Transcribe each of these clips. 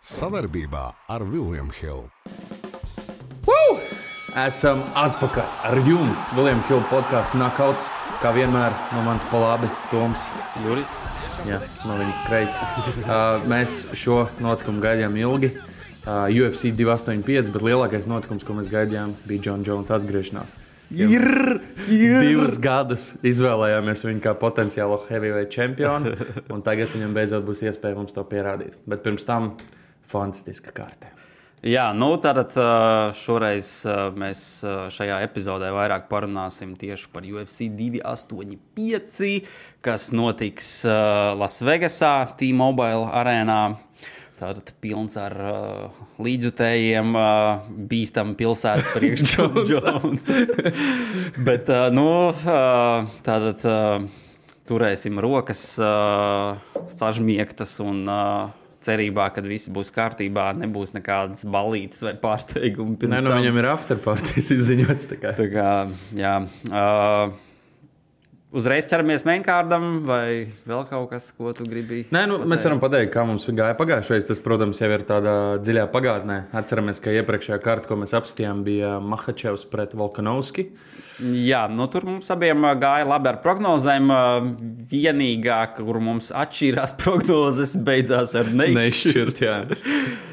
Savarbībā ar William Hill. Esam atpakaļ ar jums. William Hill podkāsts Knockouts. Kā vienmēr no manas pa labi Toms Juris. Jā, no viņa kreisi. Mēs šo notikumu gaidījām ilgi. UFC 285, bet lielākais notikums, ko mēs gaidījām, bija Jon Jones atgriešanās. 2 gadus izvēlējāmies viņu kā potenciālo heavyweight čempionu, un tagad viņam beidzot būs iespēja mums to pierādīt. Bet pirms tam fantastiska kārta. Jā, tātad šoreiz mēs šajā epizodē vairāk parunāsim tieši par UFC 285, kas notiks Lasvegasā, T-Mobile arēnā. Tātad pilns ar līdzjutējiem, bīstam pilsētu priekš Jones. Bet, tātad turēsim rokas sažmiegtas un cerībā, kad viss būs kārtībā, nebūs nekādas balītes vai pārsteigumi. Viņam ir afterparties izziņots. Tā kā, jā. Uzreiz ķeramies mainkārdam vai vēl kaut kas, ko tu gribi? Mēs varam pateikt, kā mums gāja pagājušais. Tas, protams, jau ir tādā dziļā pagātnē. Atceramies, ka iepriekšējā kārta, ko mēs apskatījām, bija Makhačevs pret Volkanovski. Jā, tur mums abiem gāja labi ar prognozēm. Vienīgā, kur mums atšķīrās prognozes, beidzās ar neizšķirt. Jā.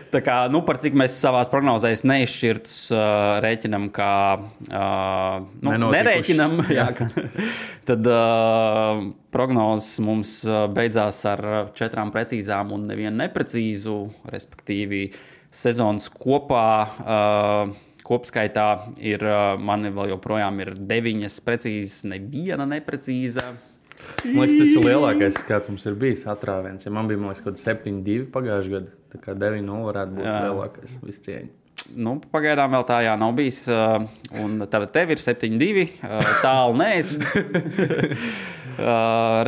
Tā kā, par cik mēs savās prognozēs neizšķirtus rēķinam, kā nerēķinam, tad prognozes mums beidzās ar 4 precīzām un nevienu neprecīzu, respektīvi sezonas kopskaitā man vēl joprojām ir 9 precīzas, neviena neprecīza. Man liekas, tas ir lielākais, kāds mums ir bijis atrāviens. Ja man bija, man liekas, kaut 7-2 pagājušajā gadā, tā kā 9-0 varētu būt lielākais viscieņa. Pagaidām vēl tā nav bijis. Un tad tev ir 7-2, tālu neesi.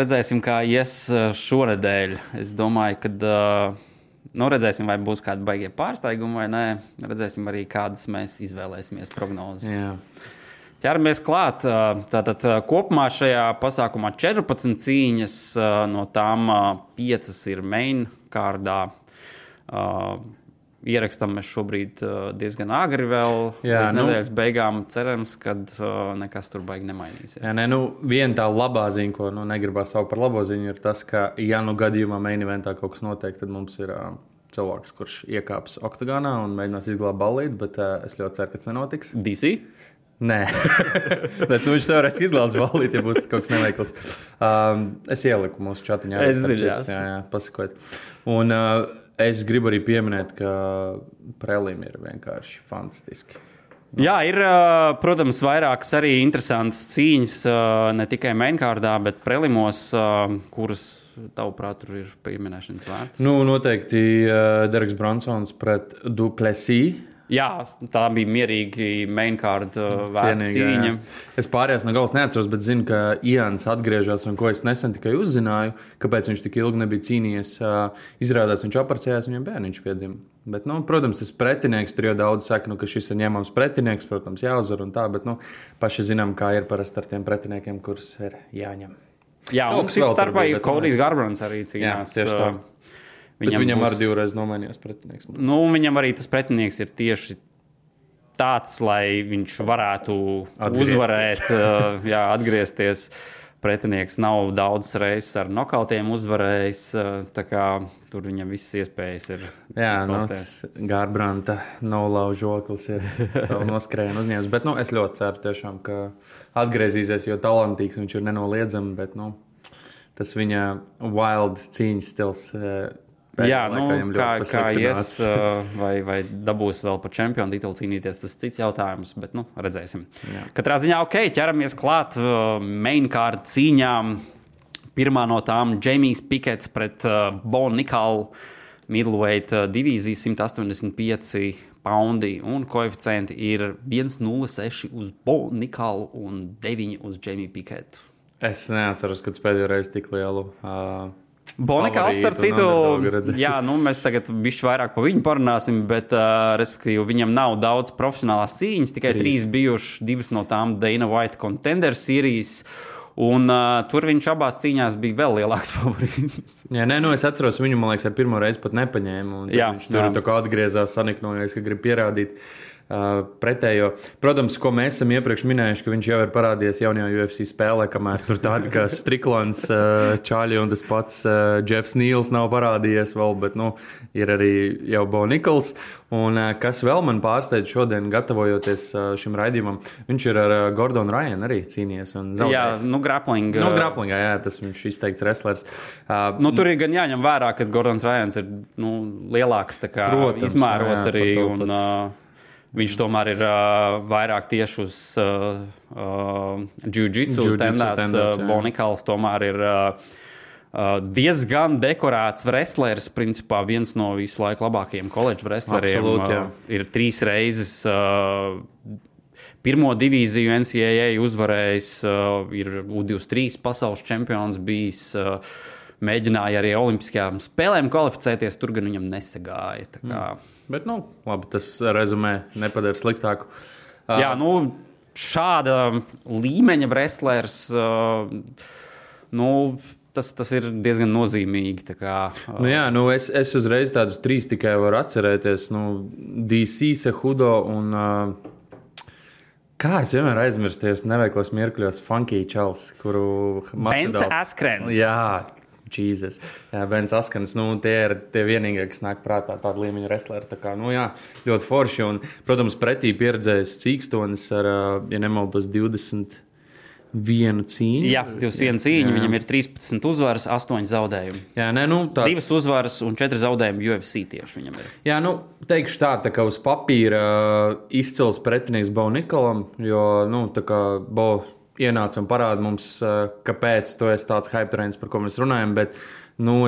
Redzēsim, kā ies šonedēļ. Es domāju, ka redzēsim, vai būs kādi baigie pārsteigumi vai nē. Redzēsim arī, kādas mēs izvēlēsimies prognozes. Jā. Ķeramies klāt. Tātad kopumā šajā pasākumā 14 cīņas, no tām 5 ir main kārdā. Ierakstam mēs šobrīd diezgan agri vēl. Līdz nedēļas beigām cerams, kad nekas tur baigi nemainīsies. Jā, viena tā labā ziņa, ko negribās saukt par labo ziņu, ir tas, ka ja gadījumā main eventā kaut kas notiek, tad mums ir cilvēks, kurš iekāps oktagonā un mēģinās izglābt ballīti, bet es ļoti ceru, ka tas nenotiks. DC? Nē, bet viņš teorētiski izglābs ballīti, ja būs kaut kas neveikls. Es ieliku mūsu chatiņā. Es dzirdēju. Jā, pasakot. Un es gribu arī pieminēt, ka prelim ir vienkārši fantastiski. Jā, ir, protams, vairākas arī interesantas cīņas, ne tikai mainkārdā, bet prelimos, kuras, tavuprāt, tur ir pieminēšanas vērts. Noteikti Dereks Bronsons pret Du Plessis. Jā, tā bija mierīgi mainkārda vērta cīņa. Es pārējās no galas neatceros, bet zinu, ka Ians atgriežas, un ko es nesen tikai uzzināju, kāpēc viņš tik ilgi nebija cīnījies. Izrādās, viņš aparcējās, viņam bērniņš piedzima. Bet, protams, tas pretinieks, tur jau daudz saka, ka šis ir ņemams pretinieks, protams, jāuzvar un tā, bet, paši zinām, kā ir parasti ar tiem pretiniekiem, kurus ir jāņem. Jā, un cits starpā ir Kodijs Garbrants arī cīnās. Jā, tieši tā. Viņam arī 2 reizes nomainījās pretinieks. Viņam arī tas pretinieks ir tieši tāds, lai viņš varētu uzvarēt, atgriezties. Pretinieks nav daudz reizes ar nokautiem uzvarējis, tā kā tur viņam visas iespējas ir. Jā, Garbranta nolaužoklis ir savu noskrējienu uzņēmis. Bet es ļoti ceru tiešām, ka atgriezīsies, jo talantīgs viņš ir nenoliedzami, bet tas viņa wild cīņas stils. Jā, kā ies, vai dabūs vēl par čempionu titulu cīnīties, tas cits jautājums, bet redzēsim. Jā. Katrā ziņā, ķeramies klāt mainkārda cīņām. Pirmā no tām Jamijs Pikets pret Bo Nickal, middleweight divīzija 185 poundi, un koeficienti ir 1,06 uz Bo Nickal un 9 uz Jamie Piketu. Es neatceros, kad pēdējo reizi tik lielu... Bonikāls, starp citu, mēs tagad bišķi vairāk par viņu parunāsim, bet, respektīvi, viņam nav daudz profesionālās cīņas, tikai 3 bijuši, 2 no tām Dana White Contender Series, Un tur viņš abās cīņās bija vēl lielāks favorīts. Jā, es atceros viņu, man liekas, ar pirmo reizi pat nepaņēmu. Viņš tur tā kā atgriezās, saniknojies, ka grib pierādīt pretējo. Protams, ko mēs esam iepriekš minējuši, ka viņš jau ir parādījies jaunajā UFC spēlē, kamēr tur tādi kā Stricklands, Čāļi un tas pats Jeffs Nīls nav parādījies vēl, bet ir arī jau Bo Nichols. Un kas vēl man pārsteidz šodien, gatavojoties šim raidījumam, viņš ir ar Gordonu Ryanu arī cīnījies un zaudējis. Jā, grappling. Grapplingā, jā, tas viņš izteikts wrestlers. Tur ir gan jāņem vērā, ka Gordons Ryans ir lielāks, tā kā protams, izmēros arī. Viņš tomēr ir vairāk tieši uz jiu-jitsu tendēts. Bo Nichols tomēr ir diezgan dekorēts wrestlers, principā viens no visu laiku labākajiem koledžu wrestleriem. Absolut, ir 3 reizes pirmo divīziju NCAA uzvarējis, ir U23 pasaules čempions bijis, mēģināja arī olimpiskajām spēlēm kvalificēties, tur gan viņam nesagāja. Bet, labi, tas rezumē nepadara sliktāku. Jā, šāda līmeņa wrestlers, tas ir diezgan nozīmīgi. Es uzreiz tādus 3 tikai varu atcerēties. DC, Cejudo un... Kā es vienmēr aizmirsties neveiklos mirkļos Funky Čals, kuru... Bence Askrens. Jā, Jesus. Jā, Bence Askrens, tie ir tie vienīgie, kas nāk prātā tāda līmeņa wrestleri. Tā kā, ļoti forši. Un, protams, pretī pieredzējis Cīkstonis ar, ja nemaldos, 21 cīņu. Jā, 21 cīņu. Viņam ir 13 uzvaras, 8 zaudējumi. Jā, 2 uzvaras un 4 zaudējumi UFC tieši viņam ir. Jā, teikšu tā kā uz papīra izcils pretinieks Bo Nicholam, jo, tā kā Bo ienāca un parāda mums, kāpēc tu esi tāds hype trains, par ko mēs runājam, bet,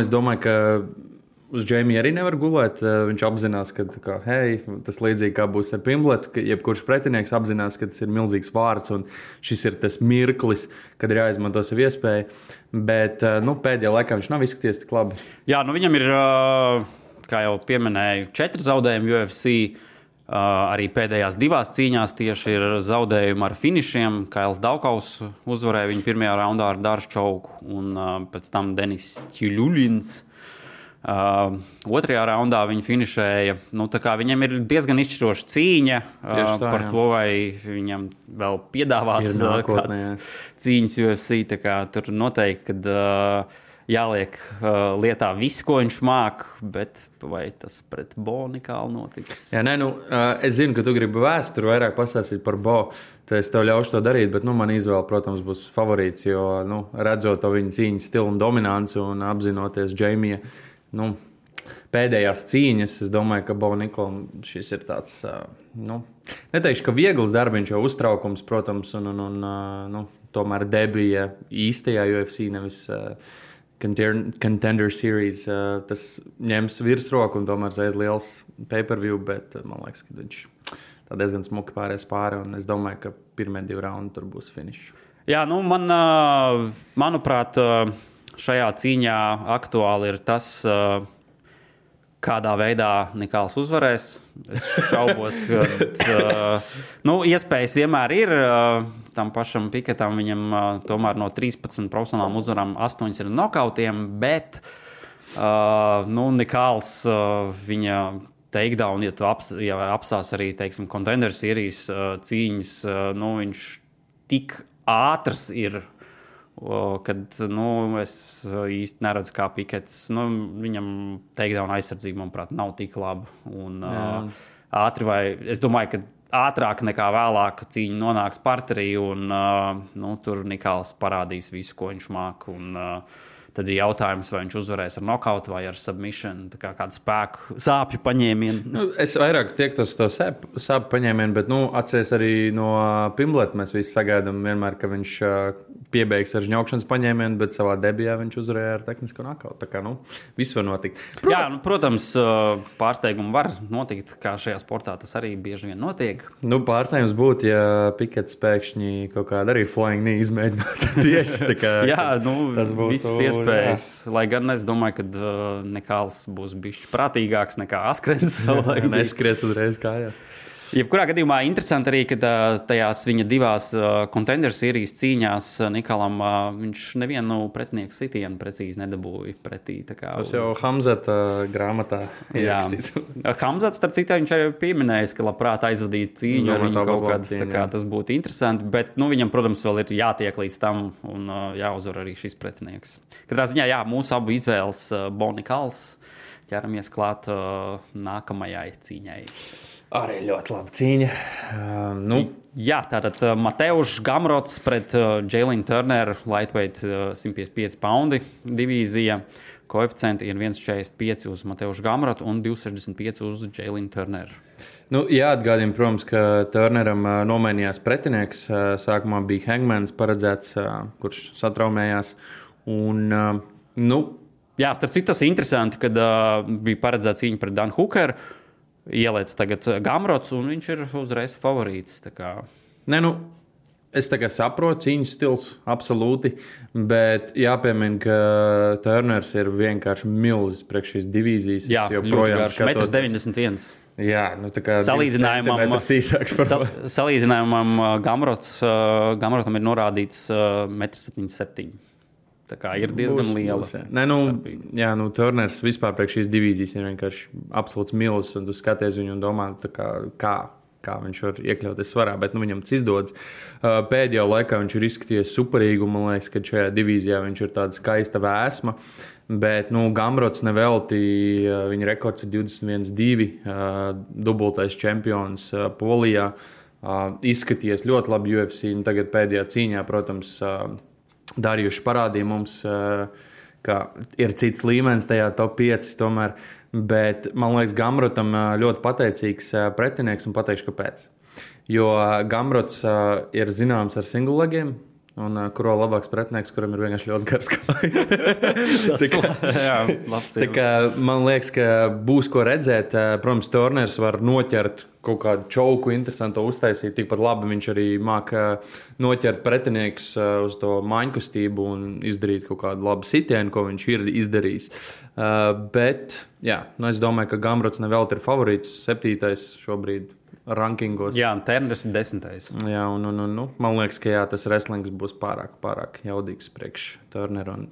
es domāju, ka uz Jamie arī nevar gulēt. Viņš apzinās, ka tas līdzīgi kā būs ar Pimbletu, ka jebkurš pretinieks apzinās, ka tas ir milzīgs vārds un šis ir tas mirklis, kad ir jāizmanto savu iespēju. Bet pēdējā laikā viņš nav izskaties tik labi. Jā, viņam ir, kā jau pieminēju, 4 zaudējumi UFC. Arī pēdējās 2 cīņās tieši ir zaudējumi ar finišiem. Kails Daukaus uzvarēja viņu pirmajā raundā ar Daršu Čauku un pēc tam Denis Ķiļuļins. Otrajā raundā viņi finišēja. Tā kā viņam ir diezgan izšķiroša cīņa par to, vai viņam vēl piedāvās kāds cīņas UFC. Tā kā tur noteikti, kad jāliek lietā viss, ko viņš māk, bet vai tas pret Bo Nichols notiks? Jā, es zinu, ka tu gribi vēsturi vairāk pastāstīt par Bo. Tad es tev ļaušu to darīt, bet man izvēle, protams, būs favorīts, jo redzot to viņa cīņas stilu un dominanci un apzinoties Jamie, pēdējās cīņas, es domāju, ka Bo Nichols šis ir tāds, neteikšu, ka viegls darbiņš, jo uztraukums, protams, un tomēr debija īstajā UFC, nevis Contender Series, tas ņems virsroku un tomēr aiz liels pay-per-view, bet man liekas, ka viņš tā diezgan smuki pāries pāri, un es domāju, ka pirmie 2 raundi tur būs finišs. Jā, manuprāt, šajā cīņā aktuāli ir tas, kādā veidā Nichols uzvarēs. Es šaubos, ka iespējas vienmēr ir. Tam pašam Piketam viņam tomēr no 13 profesionālām uzvarām 8 ir nokautiem, bet Nichols viņa takedown, ja apstās arī, teiksim, Contender Series cīņas, viņš tik ātrs ir, kad es īsti neredzu, kā Pikets. Viņam takedown aizsardzība, manuprāt, nav tik laba. Un es domāju, ka ātrāk nekā vēlāk cīņa nonāks parterī, un tur Nichols parādīs visu, ko viņš māk. Tad ir jautājums, vai viņš uzvarēs ar knockout vai ar submission, tā kā kādu spēku sāpju paņēmienu. Es vairāk tiektos to sāpju paņēmienu, bet atceries arī no Pimbleta. Mēs visi sagaidām vienmēr, ka viņš piebeigs ar žņaukšanas paņēmienu, bet savā debijā viņš uzvarēja ar tehnisko knockout. Tā kā, viss var notikt. Jā, protams, pārsteigumi var notikt, kā šajā sportā tas arī bieži vien notiek. Pārsteigums būtu, ja Pikets pēkšņi kaut kādu arī flying knee izmēģinātu tieši. Tā kā, jā, tas būtu viss iespējas. Jā. Lai gan es domāju, ka Nichols būs bišķi prātīgāks nekā Askrens. Neskries uzreiz kājās. Jebkurā gadījumā interesanti arī, ka tajās viņa divās contender sērijas cīņās Nikalam viņš nevienu pretinieku sitienu precīzi nedabūja pretī. Tas jau Hamzata grāmatā ierakstīts. Hamzats, starp citu, viņš arī pieminējis, ka labprāt aizvadīt cīņu ar viņu kaut kāds, tas būtu interesanti, bet viņam, protams, vēl ir jātiek līdz tam un jāuzvar arī šis pretinieks. Katrā ziņā, mūsu abu izvēles Bo Nikals. Ķeramies klāt nākamajai cīņai. Arī ļoti laba cīņa. Jā, tātad Mateusz Gamrots pret Jalin Turner, lightweight 155 poundi divīzija. Koeficienti ir 1,45 uz Mateusz Gamrotu un 2,65 uz Jalin Turner. Jāatgādina, protams, ka Turneram nomainījās pretinieks. Sākumā bija Hangmans paredzēts, kurš satraumējās. Jā, starp citu, tas ir interesanti, kad bija paredzēts cīņa pret Dan Hookeru. Ieliec tagad Gamrots, un viņš ir uzreiz favorīts. Es saprotu cīņas stils, absolūti, bet jāpiemina, ka Turners ir vienkārši milzis priekš šīs divīzijas. Jā, joprojām skatoties 1,91 m. Jā, salīdzinājumam Gamrotam ir norādīts 1,77 m. Tā kā ir diezgan liela. Turners vispār priekš šīs divīzijas ir vienkārši absolūts milzis, un tu skaties viņu un domā, kā viņš var iekļauties svarā, bet viņam tas izdodas. Pēdējā laikā viņš ir izskatījies superīgi, un man liekas, ka šajā divīzijā viņš ir tāda skaista vēsma, bet Gamrots nevelti, viņa rekords ir 21-2, dubultais čempions Polijā, izskatījies ļoti labi UFC, un tagad pēdējā cīņā, protams, Darījuši parādīja mums, ka ir cits līmenis tajā top 5 tomēr, bet man liekas Gamrotam ļoti pateicīgs pretinieks un pateikšu, kāpēc. Jo Gamrots ir zināms ar single legiem, un kuro labāks pretinieks, kuram ir vienkārši ļoti gars kājas. Man liekas, ka būs ko redzēt. Protams, Turners var noķert kaut kādu čauku, interesantu uztaisīt. Tikpat labi viņš arī māca noķert pretiniekus uz to māņkustību un izdarīt kaut kādu labu sitienu, ko viņš ir izdarījis. Es domāju, ka Gamrots nevēl ir favorīts, 7. šobrīd rankingos. Jā, Turners ir 10. Jā, man liekas, ka tas wrestlings būs pārāk jaudīgs priekš Turneru.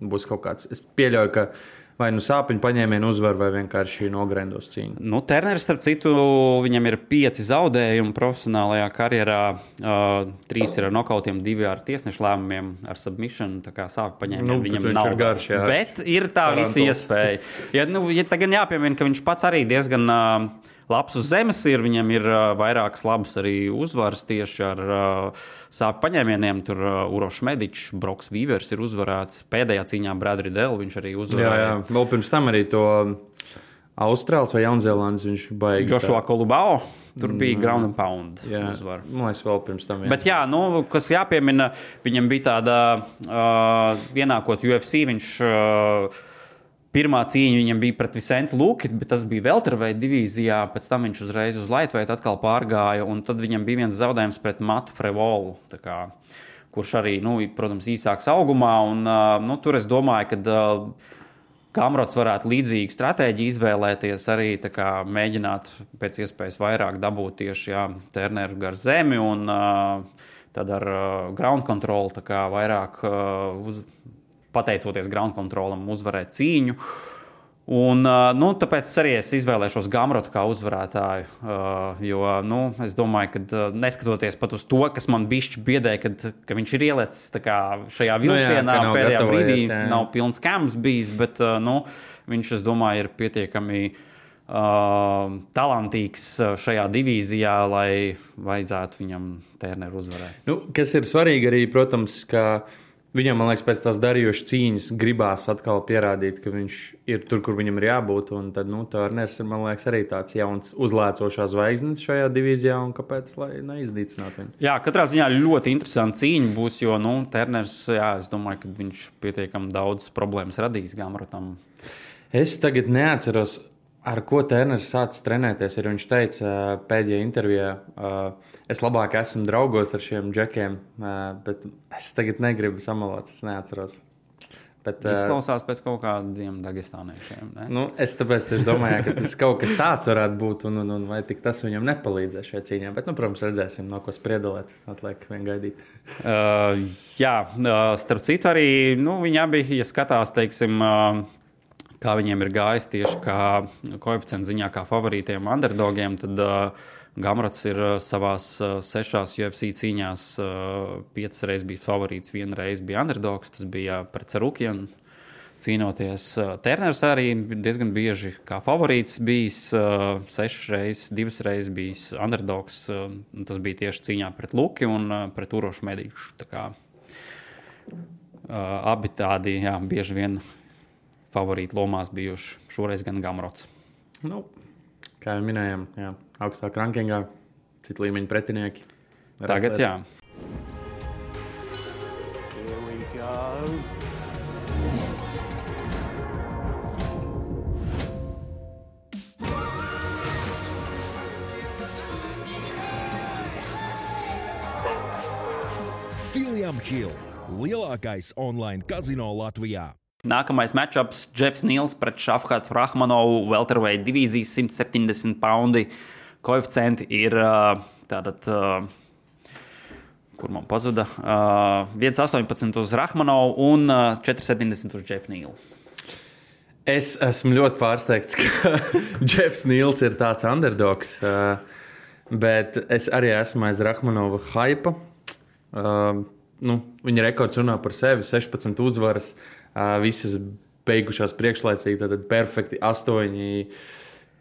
Būs kaut kāds. Es pieļauju, ka vai sāpiņu paņēmienu uzvar, vai vienkārši nogrendos cīņu. Turners, starp citu, viņam ir 5 zaudējumi profesionālajā karjerā. 3 ir ar nokautiem, 2 ar tiesnešu lēmumiem, ar submission. Tā kā sāpju paņēmienu viņam nav. Garš, jā. Bet ir tā visa iespēja. Tagad jāpiemina, ka viņš pats arī diezgan labs uz zemes ir. Viņam ir vairākas labas arī uzvaras tieši ar sāpju paņēmieniem. Tur Uroš Medičs, Broks Vīvers ir uzvarēts. Pēdējā cīņā Brad Riddell viņš arī uzvarēja. Jā, vēl pirms tam arī to Austrāls vai Jaunzēlandes viņš baigi. Joshua Kolubao, tur bija ground and pound uzvara. Man liekas, vēl pirms tam. Bet kas jāpiemina, viņam bija tāda, ienākot UFC, viņš pirmā cīņa viņam bija pret Vicentu Luki, bet tas bija welterweight divīzijā, pēc tam viņš uzreiz uz lightweight atkal pārgāja, un tad viņam bija viens zaudējums pret Matu Frevolu, kurš arī, protams, īsāks augumā, un tur es domāju, ka Gamrots varētu līdzīgu stratēģiju izvēlēties, arī mēģināt pēc iespējas vairāk dabūt tieši Turneru gar zemi, un tad ar ground control vairāk pateicoties ground controlam uzvarēt cīņu. Un, tāpēc arī es izvēlēšos Gamrotu kā uzvarētāju, jo es domāju, ka neskatoties pat uz to, kas man bišķi biedē, ka viņš ir ielicis šajā vilcienā pēdējā brīdī, nav pilns kams bijis, bet viņš, es domāju, ir pietiekami talantīgs šajā divīzijā, lai vajadzētu viņam Turneru uzvarēt. Kas ir svarīgi arī, protams, ka viņam, man liekas, pēc tās darījušas cīņas gribās atkal pierādīt, ka viņš ir tur, kur viņam ir jābūt. Un tad, Turners ir, man liekas, arī tāds jauns uzlēcošā zvaigznes šajā divīzijā, un kāpēc, lai neizdīcinātu viņu. Jā, katrā ziņā ļoti interesanti cīņa būs, jo, Turners, es domāju, ka viņš pietiekami daudz problēmas radīs Gamrotam. Es tagad neatceros, ar ko Turners sācis trenēties. Viņš teica pēdējā intervijā, es labāk esmu draugos ar šiem džekiem, bet es tagad negribu samalot, es neatceros. Izklausās pēc kaut kādiem dagestāniešiem. Ne? Nu, es tāpēc domāju, ka tas kaut kas tāds varētu būt, un vai tik tas viņam nepalīdzēs šajā cīņā. Bet, protams, redzēsim, no ko spriedalēt. Atliek vien gaidīt. Starp citu arī, viņi abi, ja skatās, teiksim, kā viņiem ir gājis tieši kā koeficientu ziņā, kā favorītiem underdogiem, tad Gamrots ir savās 6 UFC cīņās 5 reizes bija favorīts, 1 reize bija underdogs. Tas bija pret Cerukienu cīnoties. Terners arī diezgan bieži kā favorīts bijis 6 reizes, 2 reizes bijis underdogs. Tas bija tieši cīņā pret Luki un pret Urošu Mediču. Tā kā abi tādi, bieži vien favorīti lomās bijuši. Šoreiz gan Gamrots. Kā jau minējām, augstāk rankingā, citu līmeņu pretinieki. Tagad, jā. Here we go. William Hill, lielākais online kazino Latvijā. Nākamais matchups - Jeffs Nīls pret Šafhatu Rahmanovu, welterweight divīzijas 170 poundi. Koeficienti ir tātad, kur man pazuda, 1,18 uz Rahmanovu un 4,70 uz Jeffu Nīlu. Es esmu ļoti pārsteigts, ka Jeffs Nīls ir tāds underdogs, bet es arī esmu aiz Rahmanova hypa. Viņa rekords runā par sevi, 16 uzvaras, visas beigušās priekšlaicīgi, tad perfekti 8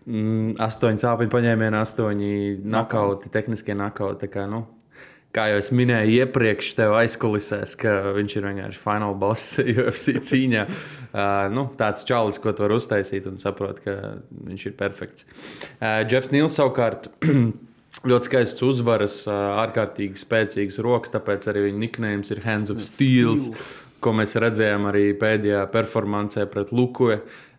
sāpiņu paņēmieni, 8 nakauti, tehniskie nakauti. Kā jau es minēju iepriekš tev aizkulisēs, ka viņš ir vienkārši final boss UFC cīņā. Tāds čalis, ko tu var uztaisīt un saprot, ka viņš ir perfekts. Jeffs Nīls savukārt ļoti skaists uzvaras, ārkārtīgi spēcīgs rokas, tāpēc arī viņa nicknames ir Hands of Steel, ko mēs redzējām arī pēdējā performancē pret Luku.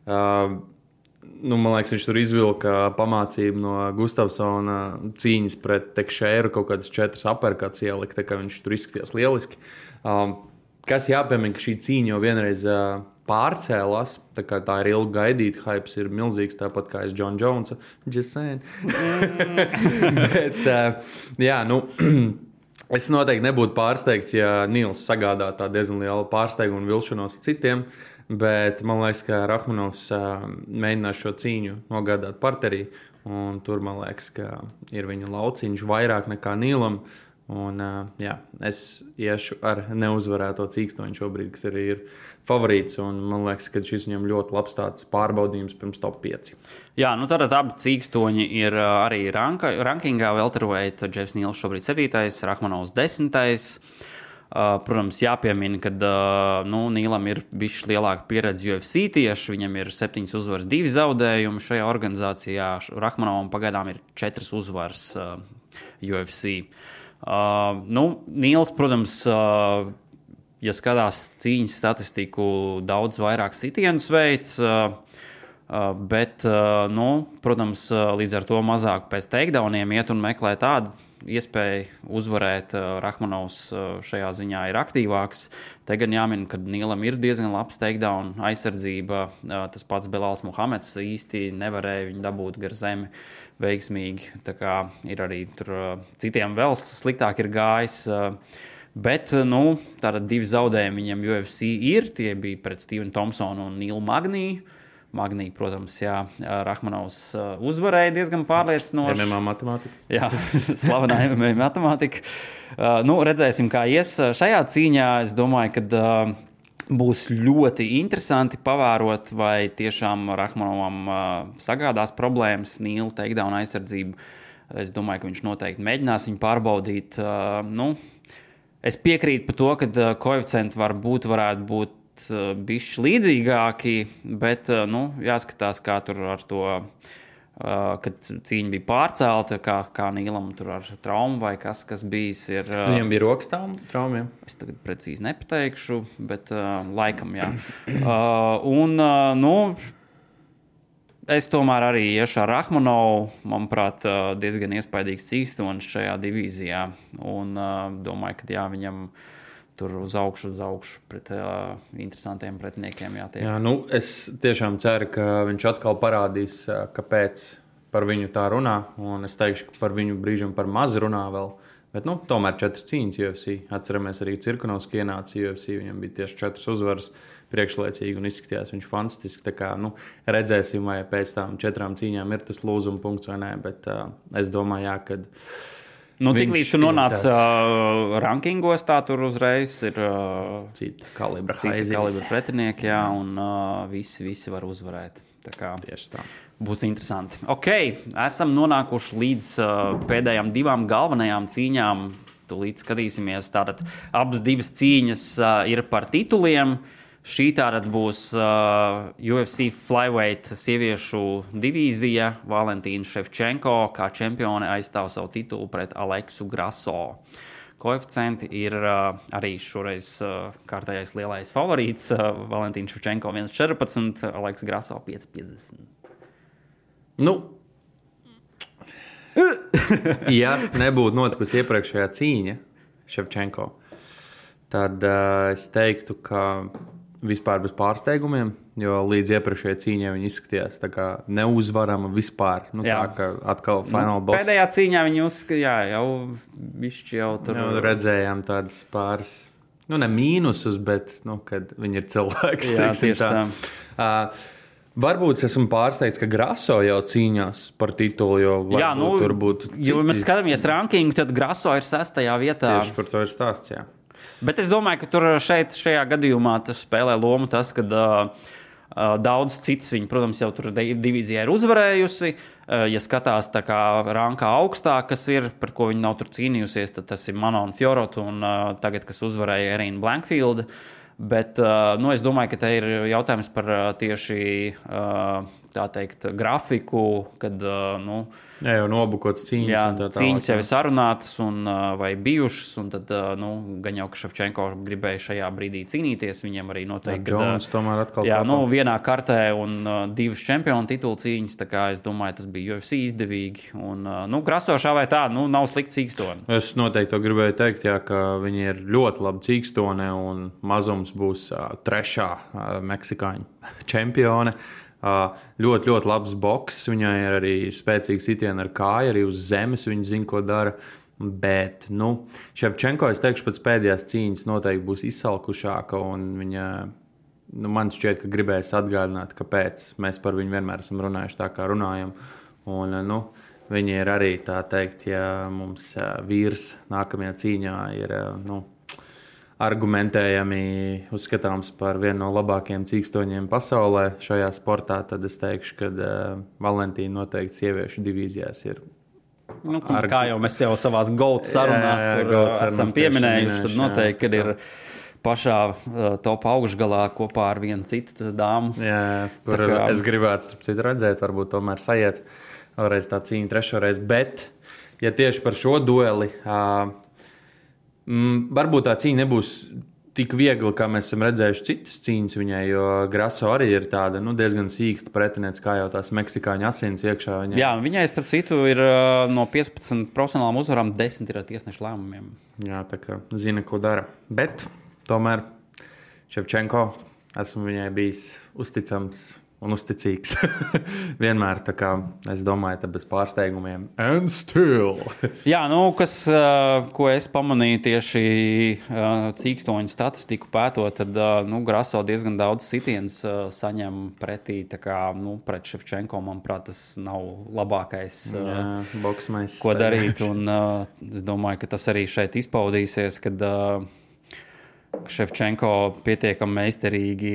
Man liekas, viņš tur izvilka pamācību no Gustafsona cīņas pret Tekšēru, kaut kādas 4 uppercuts ielika, tā kā viņš tur izskatījās lieliski. Kas jāpiemina, ka šī cīņa jau vienreiz pārcēlās, tā ir ilgi gaidīta, hypes ir milzīgs, tāpat kā es John Jones. Just saying. Bet, es noteikti nebūtu pārsteigts, ja Nīls sagādā tā diezgan lielu pārsteigumu un vilšanos citiem, bet man liekas, ka Rahmanovs mēģinās šo cīņu nogādāt parterī, un tur man liekas, ka ir viņa lauciņš vairāk nekā Nīlam. Un, es iešu ar neuzvarēto cīkstoņu šobrīd, kas arī ir favorīts. Un man liekas, ka šis viņam ļoti labs tāds pārbaudījums pirms top 5. Jā, tātad abi cīkstoņi ir arī rankingā. Welterweight Jeffs Nīls šobrīd 7. Rahmanovs 10. Protams, jāpiemina, ka Nīlam ir bišķi lielāka pieredze UFC tieši. Viņam ir 7 uzvaras, 2 zaudējumi šajā organizācijā. Rahmanovam pagaidām ir 4 uzvaras UFC. Nīls, protams, ja skatās cīņas statistiku, daudz vairāk sitienus veids, bet, protams, līdz ar to mazāk pēc takedowniem iet un meklē tādu iespēju uzvarēt. Rahmanovs šajā ziņā ir aktīvāks. Te gan jāmin, ka Nīlam ir diezgan labs takedown aizsardzība. Tas pats Belāls Muhameds īsti nevarēja viņu dabūt gar zemi veiksmīgi. Tā kā ir arī tur citiem vēl sliktāk ir gājis. Bet, tātad 2 zaudējumi viņam UFC ir. Tie bija pret Stevenu Thompsonu un Nīlu Magniju. Magnija, protams, Rahmanovs uzvarēja diezgan pārliecinoši. MMA matemātika. Jā, slavenā MMA matemātika. Redzēsim, kā ies šajā cīņā. Es domāju, ka būs ļoti interesanti pavērot, vai tiešām Rahmanovam sagādās problēmas Nīla takedown aizsardzību. Es domāju, ka viņš noteikti mēģinās viņu pārbaudīt. Es piekrītu par to, ka koeficienti varētu būt bišķi līdzīgāki, bet jāskatās, kā tur ar to, kad cīņa bija pārcelta, kā Nīlam tur ar traumu vai kas bijis. Viņam bija rokas traumiem? Es tagad precīzi nepateikšu, bet laikam, jā. Es tomēr arī iešu ar Rahmanovu, manuprāt, diezgan iespaidīgs cīkstonis šajā divīzijā, un domāju, ka viņam tur uz augšu pret interesantiem pretiniekiem jātiek. Jā, es tiešām ceru, ka viņš atkal parādīs, kāpēc par viņu tā runā, un es teikšu, ka par viņu brīžam par maz runā vēl. Bet, tomēr 4 cīņas UFC. Atceramies arī Cirkunovski ienāca UFC, viņam bija tieši 4 uzvaras priekšlaicīgi un izskatījās viņš fantastiski. Tā kā, redzēsim, vai pēc tām 4 cīņām ir tas lūzuma punkts vai nē, bet es domāju, jā, kad tik līdz tu nonāc rankingos, tā tur uzreiz ir cita kalibra pretinieki, jā, un visi var uzvarēt. Tā kā tieši tā. Būs interesanti. Ok, esam nonākuši līdz pēdējām 2 galvenajām cīņām. Tūlīt skatīsimies. Tātad abas 2 cīņas ir par tituliem. Šī tātad būs UFC Flyweight sieviešu divīzija. Valentīna Ševčenko kā čempione aizstāv savu titulu pret Aleksu Grasso. Koeficienti ir arī šoreiz kārtējais lielais favorīts. Valentīna Ševčenko 1,14, Aleks Grasso 5,50. Ja nebūtu notikusi iepriekšējā cīņa Ševčenko, tad es teiktu, ka vispār bez pārsteigumiem, jo līdz iepriekšējai cīņai viņi izskatījās tā kā neuzvarama vispār. Tā kā atkal final boss. Pēdējā cīņā viņi uzskatījās, jau bišķi jau tur. Redzējām tādas pāris, ne mīnusus, bet, kad viņi ir cilvēks. Jā, tieši tā. Varbūt es esmu pārsteigts, ka Grasso jau cīņās par titulu, jo tur būtu citi. Ja mēs skatāmies rankingu, tad Grasso ir 6. vietā. Tieši par to ir stāsts, jā. Bet es domāju, ka tur šajā gadījumā tas spēlē lomu tas, ka daudz citas viņi, protams, jau tur divīzijā ir uzvarējusi. Ja skatās tā kā rankā augstāk, kas ir, par ko viņi nav tur cīnījusies, tad tas ir Manon Fiorot un tagad, kas uzvarēja Irina Blankfielda. Bet es domāju, ka te ir jautājums par tieši tā teikt grafiku, kad jā, jau nobukots cīņas. Jā, cīņas jau ir sarunātas vai bijušas, un tad gan jau, ka Ševčenko gribēja šajā brīdī cīnīties, viņiem arī noteikti. Jones tomēr atkal. Jā, vienā kartē un 2 čempionu titulu cīņas, tā kā es domāju, tas bija UFC izdevīgi. Un, Grasso šā vai tā, nav slikti cīkstoni. Es noteikti to gribēju teikt, jā, ka viņi ir ļoti labi cīkstone un mazums būs 3. meksikāņu čempione. Ļoti, ļoti labs boks. Viņai ir arī spēcīga sitiena ar kāju, arī uz zemes viņa zina, ko dara. Bet, Ševčenko, es teikšu, pēc pēdējās cīņas noteikti būs izsalkušāka, un viņa, man šķiet, ka gribēs atgādināt, kāpēc mēs par viņu vienmēr esam runājuši tā, kā runājam. Un, viņa ir arī, tā teikt, ja mums vīrs nākamajā cīņā ir, argumentējami uzskatāms par vienu no labākajiem cīkstoņiem pasaulē šajā sportā, tad es teikšu, ka Valentīna noteikti sieviešu divīzijās ir. Kā jau mēs jau savās GOAT sarunās esam pieminējuši, tad noteikti, kad ir pašā top augšgalā kopā ar vienu citu dāmu. Jā, kur es gribētu starp citu redzēt, varbūt tomēr sajiet vēlreiz tā cīņa 3. reizi, bet ja tieši par šo dueli varbūt tā cīņa nebūs tik viegli, kā mēs esam redzējuši citas cīņas viņai, jo Grasso arī ir tāda diezgan sīksta pretiniece, kā jau tās meksikāņu asins iekšā. Jā, viņai, starp citu, ir no 15 profesionālām uzvarām 10 ir tiesnešu lēmumiem. Jā, tā kā zina, ko dara. Bet tomēr Ševčenko esmu viņai bijis uzticams un uzticīgs. Vienmēr, tā kā es domāju, tā bez pārsteigumiem. And still. Jā, ko es pamanīju tieši cīkstoņu statistiku pētot, tad Grasso diezgan daudz sitienus saņem pretī, tā kā pret Ševčenko, manuprāt, tas nav labākais, boksmais, ko darīt. Un es domāju, ka tas arī šeit izpaudīsies, kad Ševčenko pietiekami meistarīgi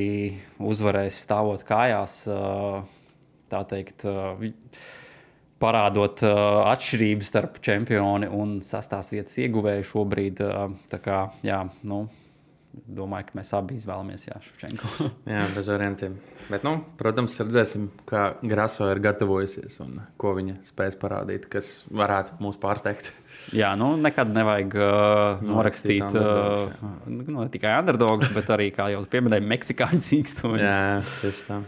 uzvarēs stāvot kājās, tā teikt, parādot atšķirības starp čempioni un 6. vietas ieguvēju šobrīd. Tā kā, domāju, ka mēs abi izvēlamies Ševčenko. Jā, bez variantiem. Bet, protams, redzēsim, kā Grasso ir gatavojusies un ko viņa spēs parādīt, kas varētu mūs pārsteigt. Jā, nekad nevajag norakstīt ne tikai underdogs, bet arī, kā jau pieminēja, meksikāņu cīkstoņus. Jā, tieši tā.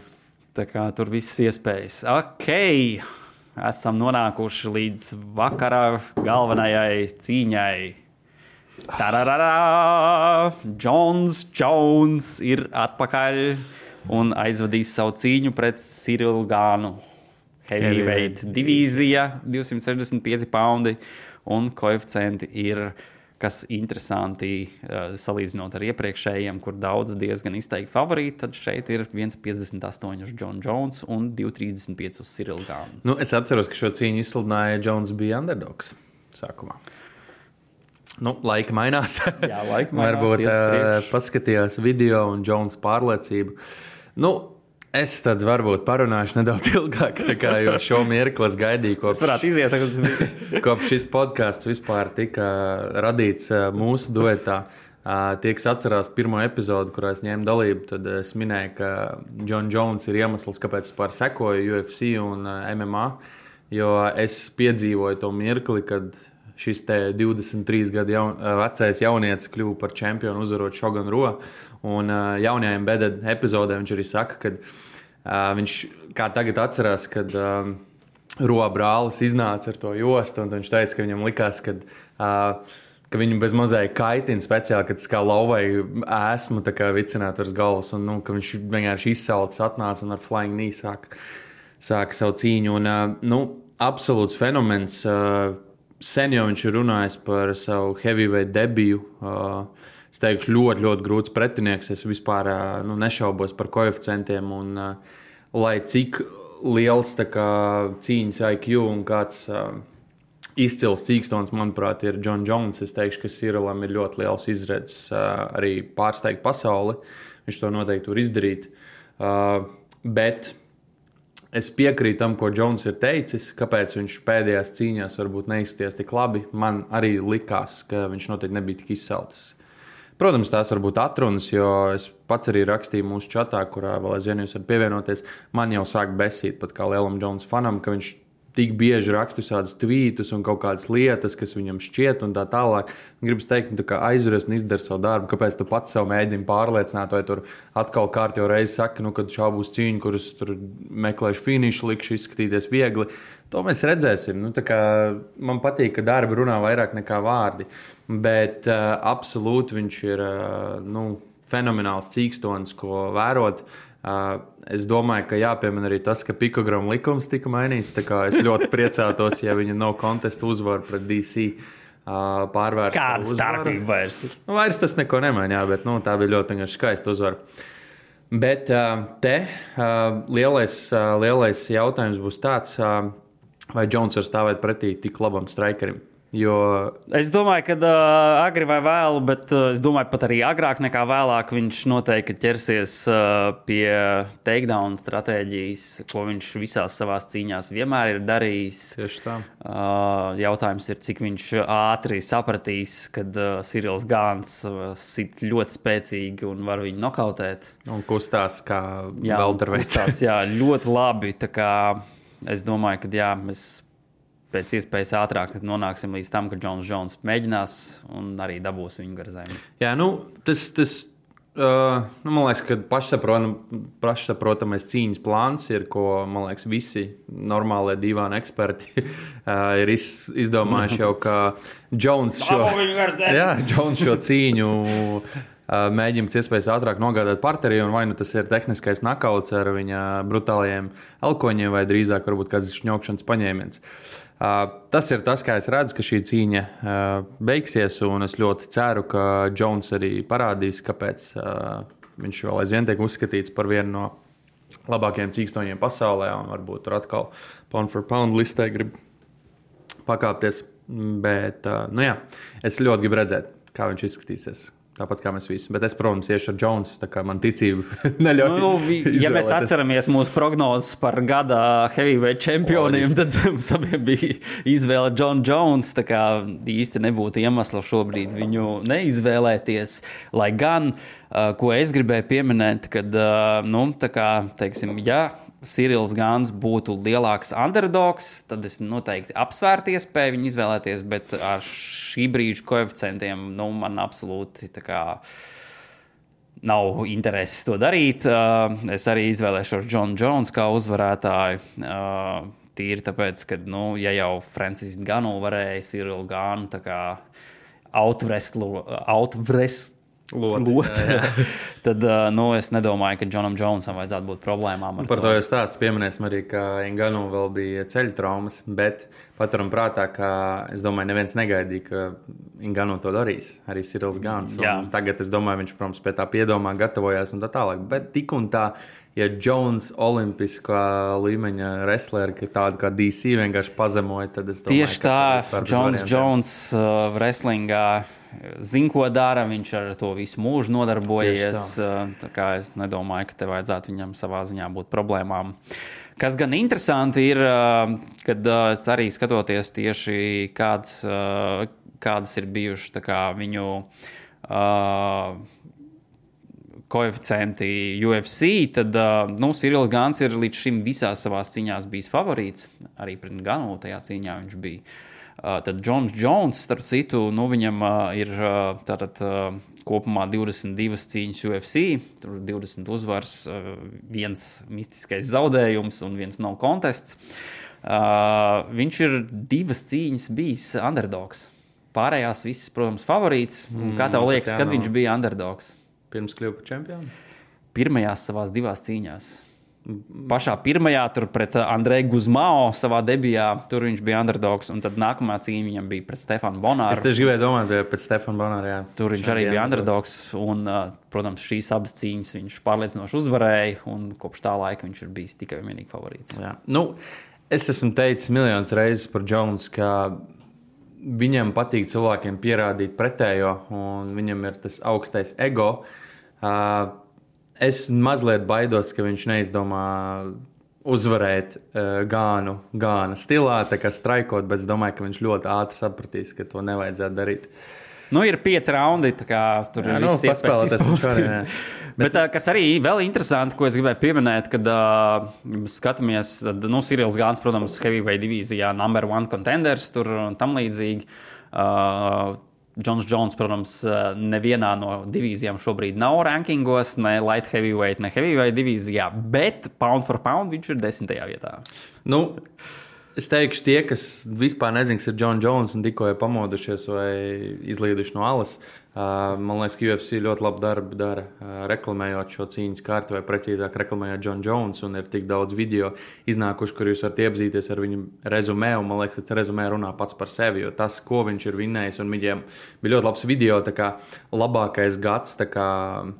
Tā kā tur viss iespējas. Ok, esam nonākuši līdz vakara galvenajai cīņai. Tararara! Jones ir atpakaļ un aizvadīs savu cīņu pret Cyril Gānu. Heavyweight divīzija, 265 poundi un koeficienti ir, kas interesanti salīdzinot ar iepriekšējiem, kur daudz diezgan izteikti favorīti, tad šeit ir 1,58 uz John Jones un 2,35 uz Cyril Gānu. Nu, es atceros, ka šo cīņu izsludināja Jones bija underdogs sākumā. Nu, laika mainās. Jā, laika mainās. Varbūt paskatījās video un Jones pārliecību. Nu, es tad varbūt parunāšu nedaudz ilgāk, jo šo mirkli es gaidīju, kopš šis podcasts vispār tika radīts mūsu duetā. Tie, kas atcerās pirmo epizodu, kurā es ņēmu dalību, tad es minēju, ka John Jones ir iemesls, kāpēc es pār sekoju UFC un MMA, jo es piedzīvoju to mirkli, kad šis te 23 gadu vecais jaunietis kļuva par čempionu uzvarot Shogun Ro. Un jaunajā embedded epizodē viņš arī saka, ka viņš kā tagad atcerās, kad Ro brālis iznāca ar to jostu, un viņš teica, ka viņam likās, ka viņu bez mazai kaitina speciāli, kad tas kā lauvai esmu vicināt virs galvas, un ka viņš vienkārši izsalcis atnāca un ar flying knee sāka savu cīņu. Un, absolūts fenomens. Sen jau viņš ir runājis par savu heavyweight debiju. Es teikšu, ļoti, ļoti grūts pretinieks. Es vispār nešaubos par koeficientiem. Un, lai cik liels cīņas IQ un kāds izcils cīkstons, manuprāt, ir John Jones, es teikšu, ka Cyrilam ir ļoti liels izredzes arī pārsteigt pasauli. Viņš to noteikti var izdarīt. Bet es piekrītu tam, ko Jones ir teicis, kāpēc viņš pēdējās cīņās varbūt neizties tik labi. Man arī likās, ka viņš noteikti nebija tik izsalcis. Protams, tās var būt atrunas, jo es pats arī rakstīju mūsu čatā, kurā vēl aizvien jūs varat pievienoties. Man jau sāk besīt pat kā lielam Jones fanam, ka viņš tik bieži raksta visādas tvītus un kaut kādas lietas, kas viņam šķiet un tā tālāk. Gribas teikt, kā aizveries un izdara savu darbu, kāpēc tu pats sev mēģini pārliecināt, vai tur atkal kārtīgi reizi saka, kad šā būs cīņa, kuras tur meklēšu finišu, likšu izskatīties viegli. To mēs redzēsim. Man patīk, ka darbi runā vairāk nekā vārdi, bet absolūti viņš ir fenomenāls cīkstons, ko vērot. Es domāju, ka jāpiemina arī tas, ka pikogramu likums tika mainīts. Es ļoti priecātos, ja viņa no kontesta uzvaru pret DC pārvērsta. Kāda starpība vairs ir? Vairs tas neko nemaina, bet tā bija ļoti skaista uzvara. Bet te lielais jautājums būs tāds, vai Jones var stāvēt pretī tik labam strikerim. Jo es domāju, ka agri vai vēlu, bet es domāju, pat arī agrāk nekā vēlāk viņš noteikti ķersies pie takedown stratēģijas, ko viņš visās savās cīņās vienmēr ir darījis. Tieši tā. Jautājums ir, cik viņš ātri sapratīs, kad Cyrils Gāns sit ļoti spēcīgi un var viņu nokautēt. Un kustās kā welterweights. Kustās, ļoti labi. Tā kā es domāju, ka mēs pēc iespējas ātrāk nonāksim līdz tam, ka John Jones mēģinās un arī dabūs viņu garzēm. Jā, man liekas, ka pašsaprotamais cīņas plāns ir, ko, man liekas, visi normālie divāni eksperti ir izdomājuši jau, ka Jones šo cīņu mēģina pēc iespējas ātrāk nogādāt parterī, un vai tas ir tehniskais nakauts ar viņa brutālajiem elkoņiem, vai drīzāk varbūt kāds šņokšanas paņēmiens. Tas ir tas, kā es redzu, ka šī cīņa beigsies, un es ļoti ceru, ka Jones arī parādīs, kāpēc viņš vēl aizvien tiek uzskatīts par vienu no labākajiem cīkstoņiem pasaulē, un varbūt tur atkal pound for pound listē grib pakāpties. Bet, es ļoti gribu redzēt, kā viņš izskatīsies. Tāpat kā mēs visi. Bet es, protams, iešu ar Jones, tā kā man ticība neļauj. Ja mēs atceramies mūsu prognozes par gada heavyweight čempioniem, tad mums abiem bija izvēle John Jones. Tā kā īsti nebūtu iemesla šobrīd viņu neizvēlēties. Lai gan, ko es gribēju pieminēt, kad, Cyrils Gāns būtu lielāks underdogs, tad es noteikti apsvērtu iespēju viņu izvēlēties, bet ar šī brīža koeficientiem man absolūti nav intereses to darīt. Es arī izvēlēšos John Jones kā uzvarētāju. Tīri tāpēc, ka, ja jau Francis Ngannou varēja Cyrilu Gānu tad es nedomāju, ka Jonam Jonesam vajadzētu būt problēmām. Par to jau stāsts pieminēsim arī, ka Ngannou vēl bija ceļu traumas, bet paturam prātā, ka es domāju, neviens negaidīja, ka Ngannou to darīs. Arī Cyrils Gans. Tagad es domāju, viņš, protams, pie tā piedomā gatavojās un tā tālāk. Bet tik un tā, ja Jones olimpiskā līmeņa wrestleri, ka tādu kā DC vienkārši pazemoja, tad es domāju, tieši tā, Jones wrestlingā zina, ko dara, viņš ar to visu mūžu nodarbojies. Tā kā es nedomāju, ka te vajadzētu viņam savā ziņā būt problēmām. Kas gan interesanti ir, kad es arī skatoties tieši kādas ir bijuši tā kā viņu koeficienti UFC, tad Cyrils Gans ir līdz šim visās savās cīņās bijis favorīts. Arī pret Ngannou tajā cīņā viņš bija. Tad Jonas Jones, starp citu, viņam ir tātad kopumā 22 cīņas UFC, tur 20 uzvars, viens mistiskais zaudējums un viens no contests. Viņš ir 2 cīņas bijis underdogs. Pārējās visas, protams, favorīts. Kā tev liekas, kad viņš bija underdogs? Pirms kļuva par čempionu? Pirmajās savās 2 cīņās. Pašā pirmajā tur pret Andreju Guzmao savā debijā, tur viņš bija underdogs, un tad nākamā cīņa viņam bija pret Stefanu Bonāru. Es tieši gribēju domāt pēc Stefanu Bonāru, jā. Tur viņš arī bija underdogs, un, protams, šīs abas cīņas viņš pārliecinoši uzvarēja, un kopš tā laika viņš ir bijis tikai vienīgi favorīts. Jā. Es esmu teicis miljonus reizes par Jones, ka viņam patīk cilvēkiem pierādīt pretējo, un viņam ir tas augstais ego. Es mazliet baidos, ka viņš neizdomā uzvarēt Gana stilā, tā kā straikot, bet es domāju, ka viņš ļoti ātri sapratīs, ka to nevajadzētu darīt. Ir 5 raundi, tā kā tur ir viss iespējas izpausties. Bet kas arī vēl interesanti, ko es gribēju pieminēt, kad skatāmies, tad, Cyrils Gans, protams, heavyweight divīzijā number 1 contenders tur un tam līdzīgi. Jonas Jones, protams, nevienā no divīzijām šobrīd nav rankingos, ne light heavyweight, ne heavyweight divīzijā, bet pound for pound viņš ir 10. vietā. Es teikšu, tie, kas vispār nezina, kas ir Jonas Jones un tikko ir pamodušies vai izlīduši no alas, man liekas, ka UFC ļoti labu darbu dara, reklamējot šo cīņas kārtu vai precīzāk reklamējot Jonas Jones, un ir tik daudz video iznākuši, kur jūs varat iepazīties ar viņu rezumē, un man liekas, tas rezumē runā pats par sevi, jo tas, ko viņš ir vinnējis, un viņiem bija ļoti labs video, tā kā labākais gads, tā kā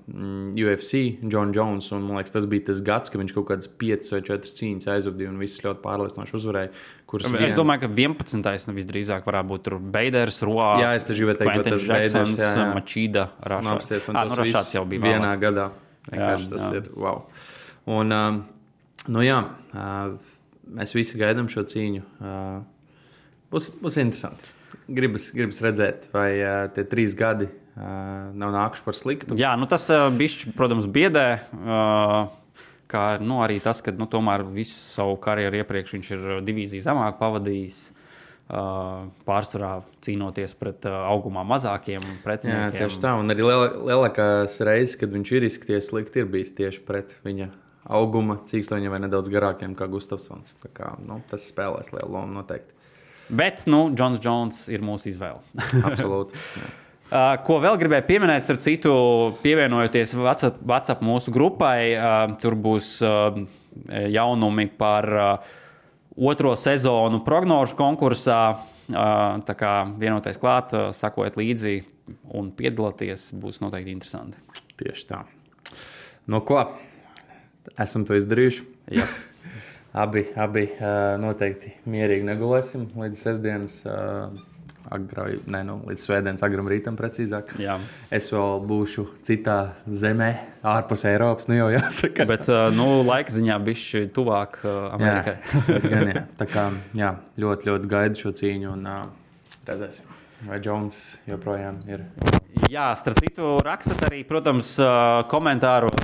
UFC, Jonas Jones, un man liekas, tas bija tas gads, ka viņš kaut kādas 5 vai 4 cīņas aizvadīja, un viss ļoti pārliecinoši uzvarēja. Es domāju, ka 11. visdrīzāk varētu būt tur Beiders, Roa, jā, es taču gribēju teikt, ka tas Beiders, Mačīda, Rašāds. Rašāds jau bija vienā gadā. Vienkārši tas ir wow. Un, mēs visi gaidām šo cīņu. Būs interesanti. Gribas redzēt, vai tie 3 gadi nav nākuši par sliktu. Jā, tas bišķi, protams, biedē. Kā arī tas, ka tomēr visu savu karjeru iepriekš viņš ir divīziju zemāk pavadījis, pārsvarā cīnoties pret augumā mazākiem pretiniekiem. Jā, tieši tā. Un arī lielākās reizes, kad viņš ir izskaties slikti, ir bijis tieši pret viņa auguma cīkstoņiem vai nedaudz garākiem kā Gustafsons. Tā kā, tas spēlēs lielu lomu noteikti. Bet, Jonas Jones ir mūsu izvēle. Absolūti. Jā. Ko vēl gribēju pieminēt, starp citu, pievienojoties WhatsApp mūsu grupai, tur būs jaunumi par 2. sezonu prognožu konkursā. Tā kā vienoties klāt, sakojiet līdzi un piedalieties, būs noteikti interesanti. Tieši tā. Ko? Esam to izdarījuši? Jā. Abi noteikti mierīgi negulēsim līdz sestdienas līdz svētdienas agram rītam precīzāk. Jā. Es vēl būšu citā zemē, ārpus Eiropas, jau jāsaka. Bet, laika ziņā bišķi tuvāk Amerikai. Jā, tā kā, ļoti, ļoti gaidu šo cīņu un redzēsim, vai Jones joprojām ir. Jā, starp citu, rakstat arī, protams, komentāros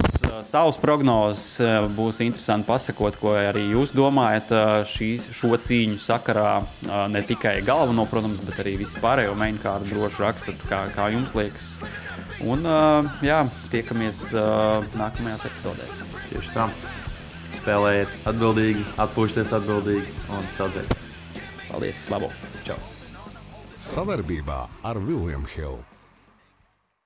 savus prognozes. Būs interesanti pasakot, ko arī jūs domājat šo cīņu sakarā. Ne tikai galveno, protams, bet arī visu pārējo mainkārdu droši rakstat, kā jums liekas. Un, tiekamies nākamajās epizodēs. Tieši tā. Spēlējiet atbildīgi, atpūšties atbildīgi un saudziet. Paldies, vislabāk! Čau! Savarbībā ar William Hill.